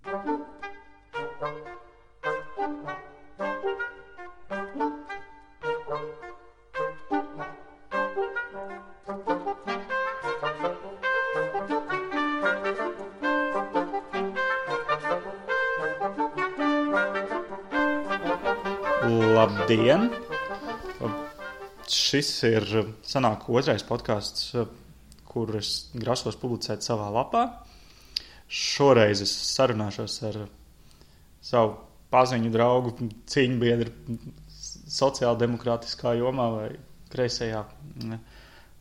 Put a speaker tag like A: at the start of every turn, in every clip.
A: Labdien! Šis ir sanāk otrais podcasts, kur es grasos publicēt savā lapā. Šoreiz es sarunāšos ar savu paziņu draugu, cīņbiedru sociāldemokrātiskā jomā vai kreisajā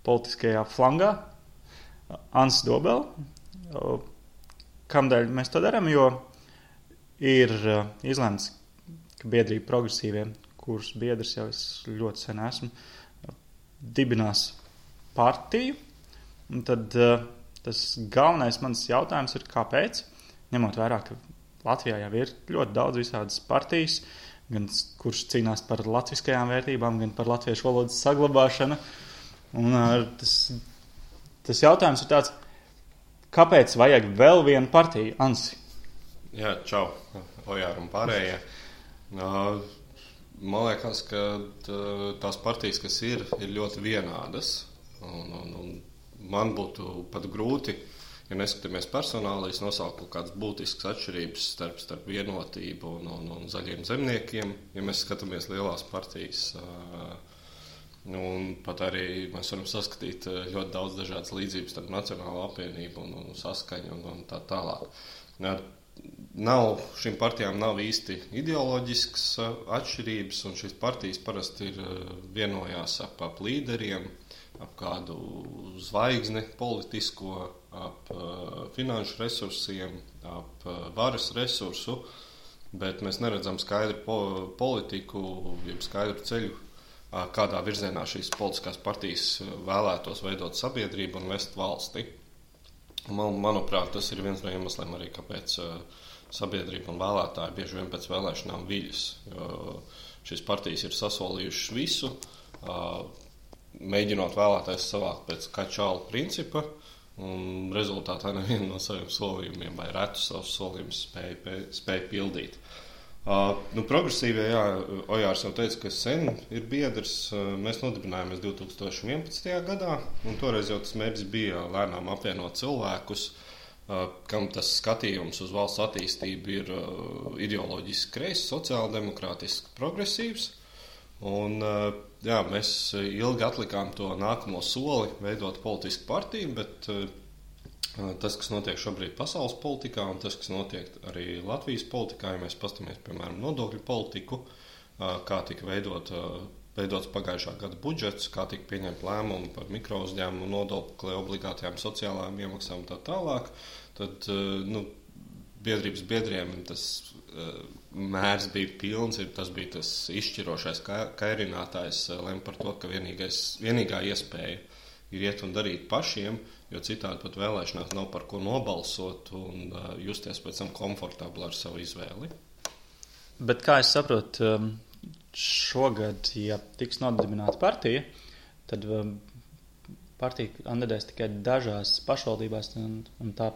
A: politiskajā flangā, Ansis Dobele. Kamdēļ mēs to darām? Jo ir izlemts, ka biedrība progresīviem, kuras biedrs jau es ļoti sen esmu, dibinās partiju. Un tad tas galvenais mans jautājums ir, kāpēc, ņemot vērā, ka Latvijā jau ir ļoti daudz visādas partijas, gan kuras cīnās par latviskajām vērtībām, gan par latviešu valodas saglabāšanu. Un tas jautājums ir tāds, kāpēc vajag vēl vienu partiju, Ansi?
B: Jā, čau, Ojār un pārējie. Man liekas, ka tās partijas, kas ir ļoti vienādas. Un man būtu pat grūti, ja neskatāmies personāli, nosaukt kaut kādas būtiskas atšķirības starp vienotību un zaļiem zemniekiem, ja mēs skatāmies lielās partijas. Un pat arī mēs varam saskatīt ļoti daudz dažādas līdzības starp Nacionālo apvienību un Saskaņu un tā tālāk. Šīm partijām nav īsti ideoloģiskas atšķirības, un šīs partijas parasti vienojās ap līderiem, ap kādu zvaigzni politisko, ap finanšu resursiem, ap varas resursu, bet mēs neredzam skaidru politiku, jeb skaidru ceļu, kādā virzienā šīs politiskās partijas vēlētos veidot sabiedrību un vest valsti. Manuprāt, tas ir viens no iemesliem arī, kāpēc sabiedrība un vēlētāji bieži vien pēc vēlēšanām viļas. Šīs partijas ir sasolījušas visu, mēģinot vēlētājs savākt pēc kačāla principa, un rezultātā nevienu no saviem solījumiem vai retu savus solījumus spēja pildīt. Progresīvie, jā, Ojārs jau teica, ka sen ir biedrs. Mēs nodibinājāmies 2011. gadā, un toreiz jau tas mērķis bija lēnām apvienot cilvēkus, kam tas skatījums uz valsts attīstību ir ideoloģiski kreis, sociāldemokrātiski progresīvs. Un, jā, mēs ilgi atlikām to nākamo soli veidot politisku partiju, bet tas, kas notiek šobrīd pasaules politikā un tas, kas notiek arī Latvijas politikā, ja mēs paskatāmies, piemēram, nodokļu politiku, kā tika veidots pagājušā gada budžets, kā tika pieņemt lēmumi par mikrouzņēmumu nodokli, obligātajām sociālajām iemaksām un tā tālāk, tad biedrības biedriem tas mērs bija pilns, tas bija tas izšķirošais kairinātājs, lem par to, ka vienīgā iespēja ir iet un darīt pašiem, jo citādi pat vēlēšanās nav par ko nobalsot un justies pēc tam komfortabli ar savu izvēli.
A: Bet kā es saprotu, šogad, ja tiks nodibināta partija, tad partija kandidēs tikai dažās pašvaldībās un tā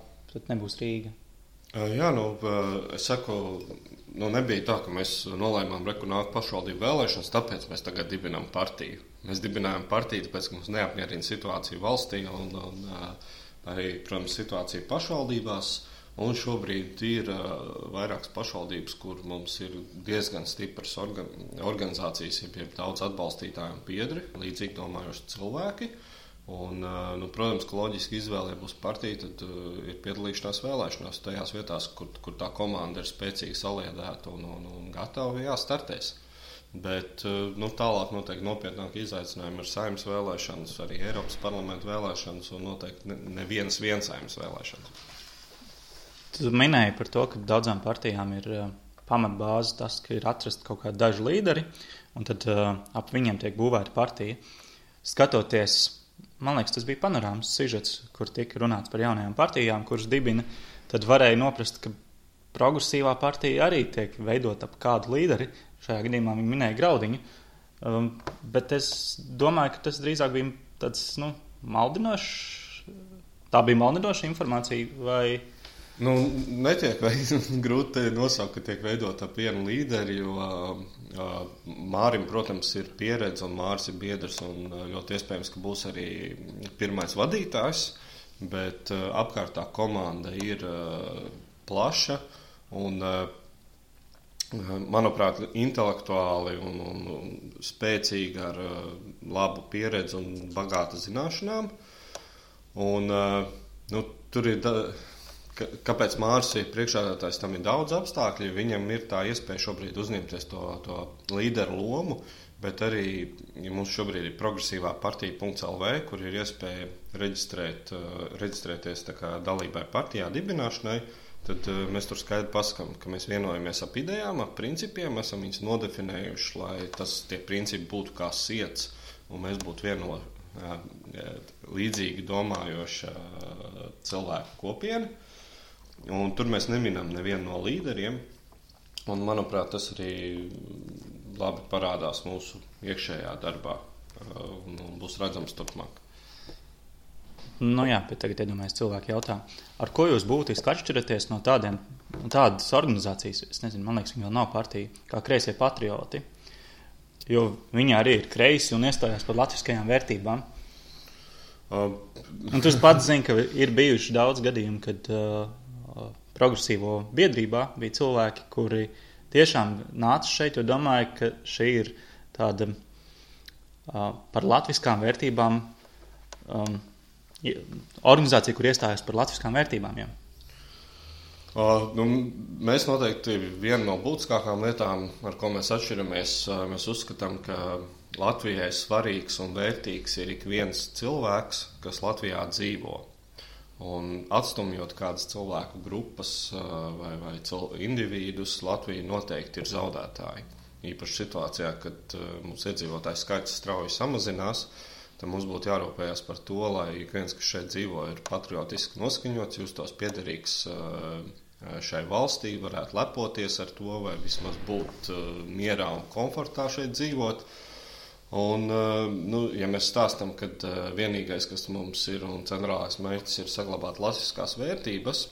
A: nebūs Rīga.
B: Jā, es saku, nebija tā, ka mēs nolēmām nāk pašvaldību vēlēšanas, tāpēc mēs tagad dibinām partiju. Mēs dibinājām partiju, tāpēc, ka mums neapmierina situācija valstī un arī, protams, situācija pašvaldībās. Un šobrīd ir vairākas pašvaldības, kur mums ir diezgan stipras organizācijas, ja daudz atbalstītāju un biedri, līdzīgi domājoši cilvēki. Un, protams, ka loģiski izvēle, ja būs partija, tad ir piedalīšanās vēlēšanās tajās vietās, kur tā komanda ir spēcīgi saliedēta un gatava, startēs. Bet tālāk noteikti nopietnāki izaicinājumi ir Saeimas vēlēšanas, arī Eiropas parlamenta vēlēšanas un noteikti nevienas Saeimas vēlēšanas.
A: Tu minēji par to, ka daudzām partijām ir pamatbāze tas, ka ir atrast kaut kādi daži līderi, un tad ap viņiem tiek būvēta partija. Skatoties, man liekas, tas bija panorāmas sižets, kur tika runāts par jaunajām partijām, kuras dibina, tad varēja noprast, ka progresīvā partija arī tiek veidot ap kādu līderi. Šajā gadījumā viņi minēja Graudiņu, bet es domāju, ka tas drīzāk bija tāds, maldinošs. Tā bija maldinoša informācija, vai
B: Nu, netiek grūti nosaukt, ka tiek veidota ap vienu līderi, jo Mārim, protams, ir pieredze un Māris ir biedrs un ļoti iespējams, ka būs arī pirmais vadītājs, bet apkārtā komanda ir plaša un, manuprāt, intelektuāli un spēcīgi ar labu pieredzi un bagātu zināšanām. Un, tur ir kāpēc Māris ir priekšsēdētājs, tam ir daudz apstākļu, viņam ir tā iespēja šobrīd uzņemties to līderu lomu, bet arī mums šobrīd ir progresīvā partija.lv, kur ir iespēja reģistrēties tā kā dalībai partijā dibināšanai, tad mēs tur skaidri pasakām, ka mēs vienojamies ap idejām, ap principiem, esam viņus nodefinējuši, lai tie principi būtu kā siets, un mēs būtu līdzīgi domājoša cilvēku kopiena. Un tur mēs neminam nevienu no līderiem, un, manuprāt, tas arī labi parādās mūsu iekšējā darbā un būs redzams turpmāk.
A: Nu jā, bet tagad iedomājies cilvēki jautā, ar ko jūs būtiski atšķiraties no tādas organizācijas, es nezinu, man liekas, viņi vēl nav partija, kā Kreisie patrioti, jo viņi arī ir kreisi un iestājās par latviskajām vērtībām. Un tu pats zini, ka ir bijuši daudz gadījumu, kad progresīvo biedrībā bija cilvēki, kuri tiešām nāca šeit, jo domāju, ka šī ir tāda par latviskām vērtībām organizācija, kur iestājas par latviskām vērtībām. Jā.
B: Mēs noteikti viena no būtiskākām lietām, ar ko mēs atšķiramies, mēs uzskatām, ka Latvijai svarīgs un vērtīgs ir ik viens cilvēks, kas Latvijā dzīvo. Un atstumjot kādas cilvēku grupas vai individus, Latvija noteikti ir zaudētāji. Īpaši situācijā, kad mums iedzīvotāju skaits strauji samazinās, tad mums būtu jārūpējas par to, lai ik viens, kas šeit dzīvo, ir patriotiski noskaņots, justos piederīgs šai valstī, varētu lepoties ar to, vai vismaz būt mierā un komfortā šeit dzīvot. Un, ja mēs stāstam, ka vienīgais, kas mums ir un centrālais mērķis ir saglabāt latviskās vērtības,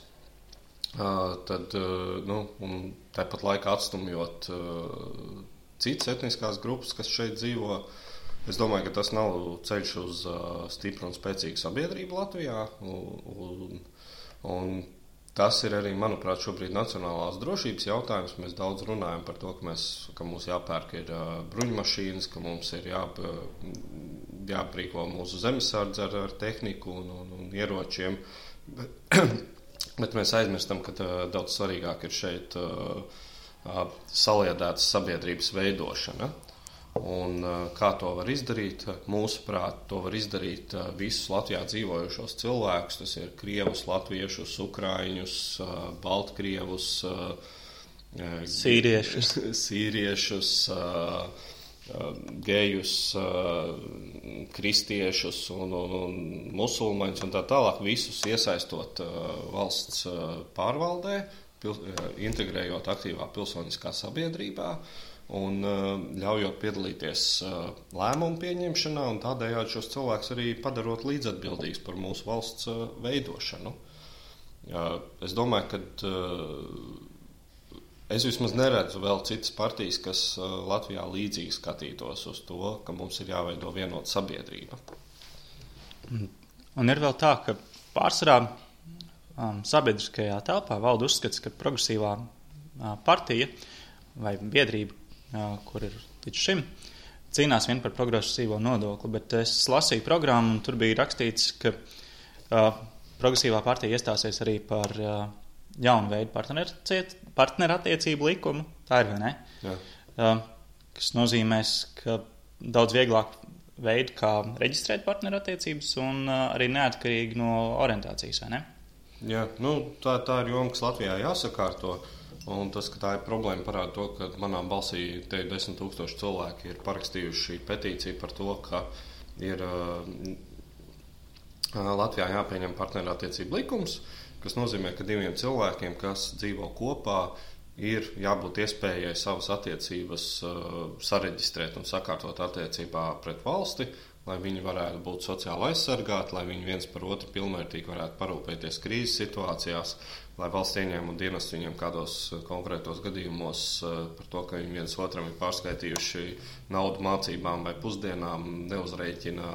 B: tad un tāpat laikā atstumjot citas etniskās grupas, kas šeit dzīvo, es domāju, ka tas nav ceļš uz stipru un spēcīgu sabiedrību Latvijā. Un tas ir arī, manuprāt, šobrīd nacionālās drošības jautājums. Mēs daudz runājam par to, ka mums jāpērk ir bruņmašīnas, ka mums ir jāprīko mūsu zemesardze ar tehniku un ieročiem. Bet mēs aizmirstam, ka daudz svarīgāk ir šeit saliedētas sabiedrības veidošana. Un kā to var izdarīt? Mūsuprāt, to var izdarīt visus Latvijā dzīvojušos cilvēkus. Tas ir krievus, latviešus, ukraiņus, baltkrievus, sīriešus, gejus, kristiešus un musulmaņus un tā tālāk. Visus iesaistot valsts pārvaldē, integrējot aktīvā pilsoniskā sabiedrībā. Un ļaujot piedalīties lēmumu pieņemšanā un tādējādi šos cilvēkus arī padarot līdzatbildīgus par mūsu valsts veidošanu. Es domāju, ka es vismaz neredzu vēl citas partijas, kas Latvijā līdzīgi skatītos uz to, ka mums ir jāveido vienota sabiedrība.
A: Un ir vēl tā, ka pārsvarā sabiedriskajā telpā valda uzskats, ka progresīvā partija vai biedrība, kur ir līdz šim, cīnās vien par progresīvo nodokli, bet es lasīju programmu un tur bija rakstīts, ka progresīvā partija iestāsies arī par jaunu veidu partnerattiecību likumu. Tā ir, vai ne? Jā. Kas nozīmēs, ka daudz vieglāk veidu, kā reģistrēt partnerattiecības un arī neatkarīgi no orientācijas, vai ne?
B: Jā, tā ir joma, kas Latvijā jāsakārto. Un tas, ka tā ir problēma, parāda to, ka manā balsī te 10 000 cilvēki ir parakstījuši petīciju par to, ka ir Latvijā jāpieņem partnerattiecību likums, kas nozīmē, ka diviem cilvēkiem, kas dzīvo kopā, ir jābūt iespējai savas attiecības sareģistrēt un sakārtot attiecībā pret valsti lai viņi varētu būt sociāli aizsargāti, lai viņi viens par otru pilnvērtīgi varētu parūpēties krīzes situācijās, lai valsts ieņēmuma dienas viņiem kādos konkrētos gadījumos par to, ka viņi viens otram ir pārskaitījuši naudu mācībām vai pusdienām, neuzrēķina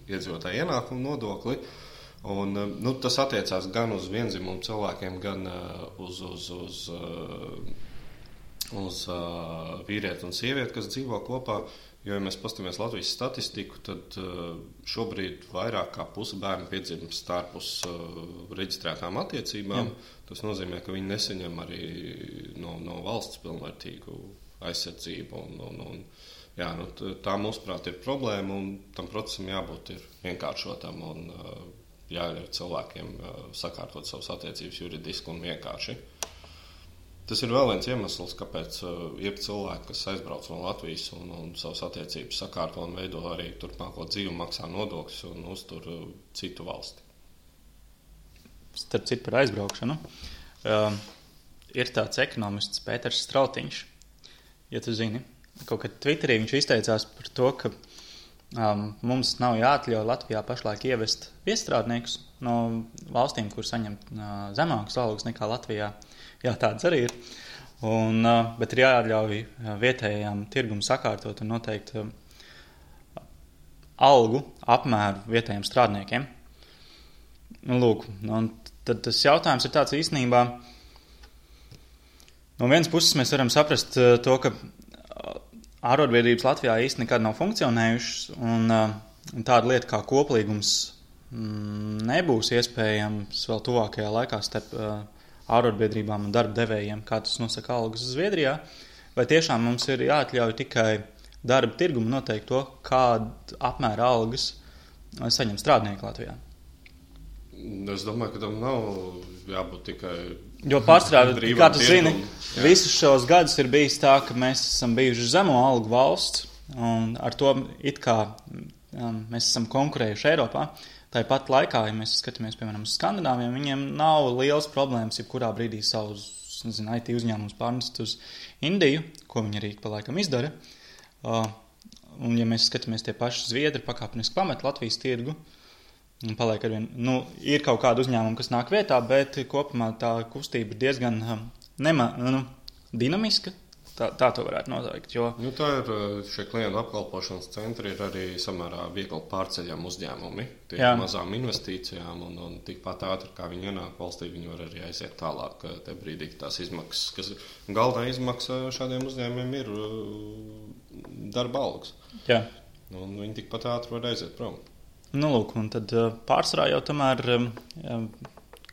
B: iedzīvotāju ienākumu nodokli. Un, tas attiecās gan uz vienzimumu cilvēkiem, gan uz vīrieti un sievieti, kas dzīvo kopā. Jo, ja mēs paskatāmies Latvijas statistiku, tad šobrīd vairāk kā puse bērnu piedzimst ārpus reģistrētām attiecībām. Tas nozīmē, ka viņi nesaņem arī no valsts pilnvērtīgu aizsardzību. Tā, mūsuprāt, ir problēma, un tam procesam jābūt ir vienkāršotam un jāļauj cilvēkiem sakārtot savas attiecības juridiski un vienkārši. Tas ir vēl viens iemesls, kāpēc ir cilvēki, kas aizbrauc no Latvijas un savas attiecības sakārto un veido arī turpmāko dzīvi, maksā nodokļus un uztur citu valsti.
A: Starp citu par aizbraukšanu. Ir tāds ekonomists Pēters Strautiņš, ja tu zini. Kaut kad Twitterī viņš izteicās par to, ka mums nav jāatļauj Latvijā pašlaik ievest viestrādniekus no valstīm, kur saņem zemākas algas nekā Latvijā. Jā, tāds arī ir. Bet ir jāļauj vietējām tirgumu sakārtot un noteikt algu apmēru vietējiem strādniekiem. Lūk, un tad tas jautājums ir tāds īstenībā. No vienas puses mēs varam saprast to, ka ārotbiedrības Latvijā īsti nekad nav funkcionējušas, un tāda lieta kā koplīgums nebūs iespējams vēl tuvākajā laikā starp ārotbiedrībām un darba devējiem, kā tas nosaka algas Zviedrijā, vai tiešām mums ir jāatļauj tikai darba tirgumu noteikt to, kādu apmēru algas saņem strādnieki Latvijā?
B: Es domāju, ka tam nav jābūt tikai
A: jo pārstrādā, kā tu zini, visus šos gadus ir bijis tā, ka mēs esam bijuši zemo algu valsts, un ar to it kā mēs esam konkurējuši Eiropā. Tāpat laikā, ja mēs skatāmies, piemēram, uz Skandināviem, viņiem nav liels problēmas, jebkurā brīdī savus, IT uzņēmumus pārnest uz Indiju, ko viņi arī pa laikam izdara. Un ja mēs skatāmies tie paši Zviedri, pakāpeniski pamet Latvijas tirgu, un paliek arvien, ir kaut kāda uzņēmuma, kas nāk vietā, bet kopumā tā kustība ir diezgan dinamiska. Tā to varētu noteikt. Jo
B: tā ir šie klientu apkalpošanas centri, ir arī samērā viegli pārceļami uzņēmumi. Tie mazām investīcijām un tikpat ātri, kā viņi ienāk valstī, viņi var arī aiziet tālāk. Te brīdī tās izmaksas, kas galvenā izmaksa šādiem uzņēmumiem ir darba algas.
A: Jā.
B: Un viņi tikpat ātri var aiziet prom.
A: Lūk, un tad pārsvarā jau tomēr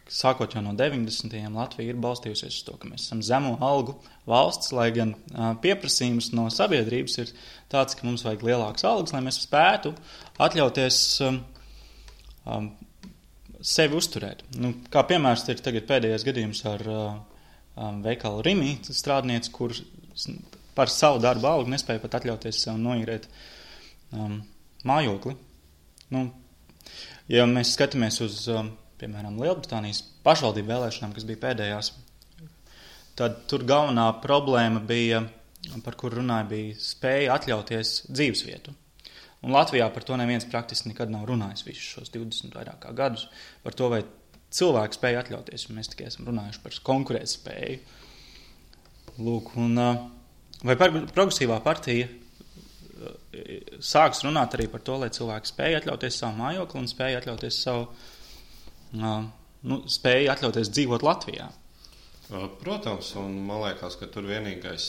A: sākot jau no 90. Latvija ir balstījusies uz to, ka mēs esam zemo algu valsts, lai gan pieprasījums no sabiedrības ir tāds, ka mums vajag lielākas algas, lai mēs spētu atļauties sevi uzturēt. Kā piemērs ir tagad pēdējais gadījums ar veikalu Rimi strādnieci, kur par savu darbu algu nespēja pat atļauties sev noīrēt mājokli. Ja mēs skatāmies uz piemēram, Lielbritānijas pašvaldību vēlēšanām, kas bija pēdējās, tad tur galvenā problēma bija, par kur runāja, bija spēja atļauties dzīvesvietu. Un Latvijā par to neviens praktiski nekad nav runājis visus šos 20 vairāk kā gadus, par to, vai cilvēki spēja atļauties, un mēs tikai esam runājuši par konkurētspēju. Lūk, un vai progresīvā partija sāks runāt arī par to, lai cilvēki spēja atļauties savu mājokli un spēja atļauties spēja atļauties dzīvot Latvijā?
B: Protams, un man liekas, ka tur vienīgais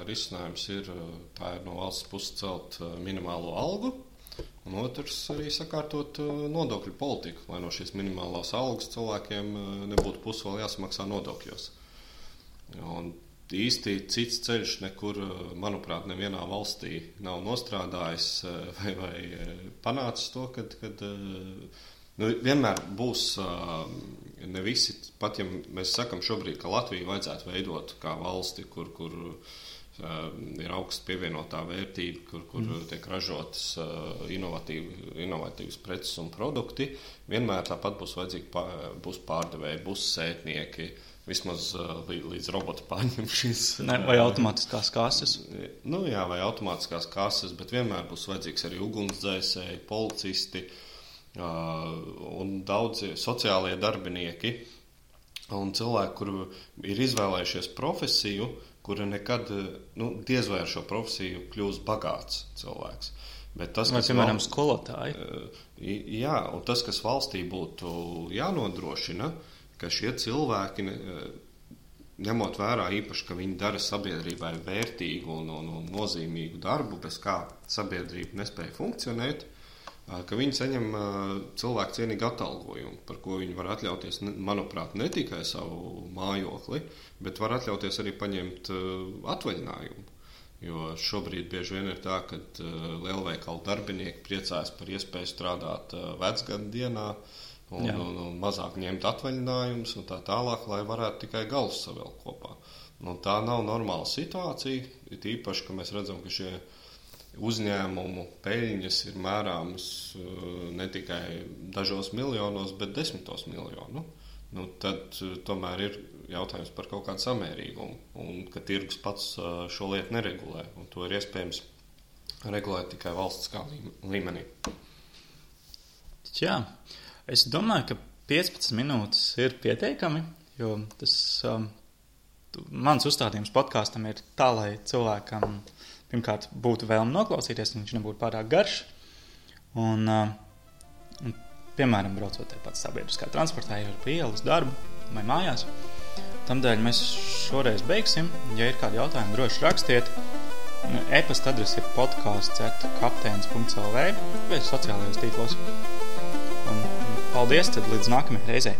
B: risinājums ir no valsts puses celt minimālo algu, un otrs arī sakārtot nodokļu politiku, lai no šīs minimālās algas cilvēkiem nebūtu pusi vēl jāsamaksā nodokļos. Un īsti cits ceļš nekur, manuprāt, nevienā valstī nav nostrādājis vai panācis to, kad vienmēr būs ne visi, pat ja mēs sakam šobrīd, ka Latviju vajadzētu veidot kā valsti, kur ir augsts pievienotā vērtība, kur tiek ražotas inovatīvas preces un produkti, vienmēr tāpat būs vajadzīgi būs pārdevēji, būs sētnieki, vismaz līdz roboti pārņem šīs.
A: Vai automātiskās kases?
B: Nu jā, vai automātiskās kases, bet vienmēr būs vajadzīgs arī ugunsdzēsēji, policisti un daudzi sociālie darbinieki un cilvēki, kuri ir izvēlējušies profesiju, kura nekad, diez vai ar šo profesiju kļūs bagāts cilvēks. Bet tas,
A: vai, piemēram, skolotāji?
B: Jā, un tas, kas valstī būtu jānodrošina, ka šie cilvēki, ņemot vērā īpaši, ka viņi dara sabiedrībai vērtīgu un nozīmīgu darbu, bez kā sabiedrība nespēja funkcionēt, ka viņi saņem cilvēku cienīgu atalgojumu, par ko viņi var atļauties, manuprāt, ne tikai savu mājokli, bet var atļauties arī paņemt atvaļinājumu. Jo šobrīd bieži vien ir tā, ka lielveikalu darbinieki priecājas par iespēju strādāt vecgadu dienā un mazāk ņemt atvaļinājumus un tā tālāk, lai varētu tikai galus savēl kopā. Tā nav normāla situācija, it īpaši, ka mēs redzam, ka šie uzņēmumu peļņas ir mērāmas ne tikai dažos miljonos, bet desmitos miljonu. Tad tomēr ir jautājums par kaut kādu samērīgumu, un ka tirgus pats šo lietu neregulē, un to ir iespējams regulēt tikai valstiskā līmenī.
A: Jā, es domāju, ka 15 minūtes ir pietiekami, jo tas mans uzstādījums podkāstam ir tā, lai cilvēkam pirmkārt būtu vēlme noklausīties, un viņš nebūtu pārāk garš. Un piemēram, braucot pats sabiedriskā transportā, jau ar ielu uz darbu vai mājās. Tamdēļ mēs šoreiz beigsim. Ja ir kādi jautājumi, droši rakstiet. E-pasta adrese ir podcasts@kapteinis.lv vai sociālajos tīklos. Un paldies, tad līdz nākamajai reizei.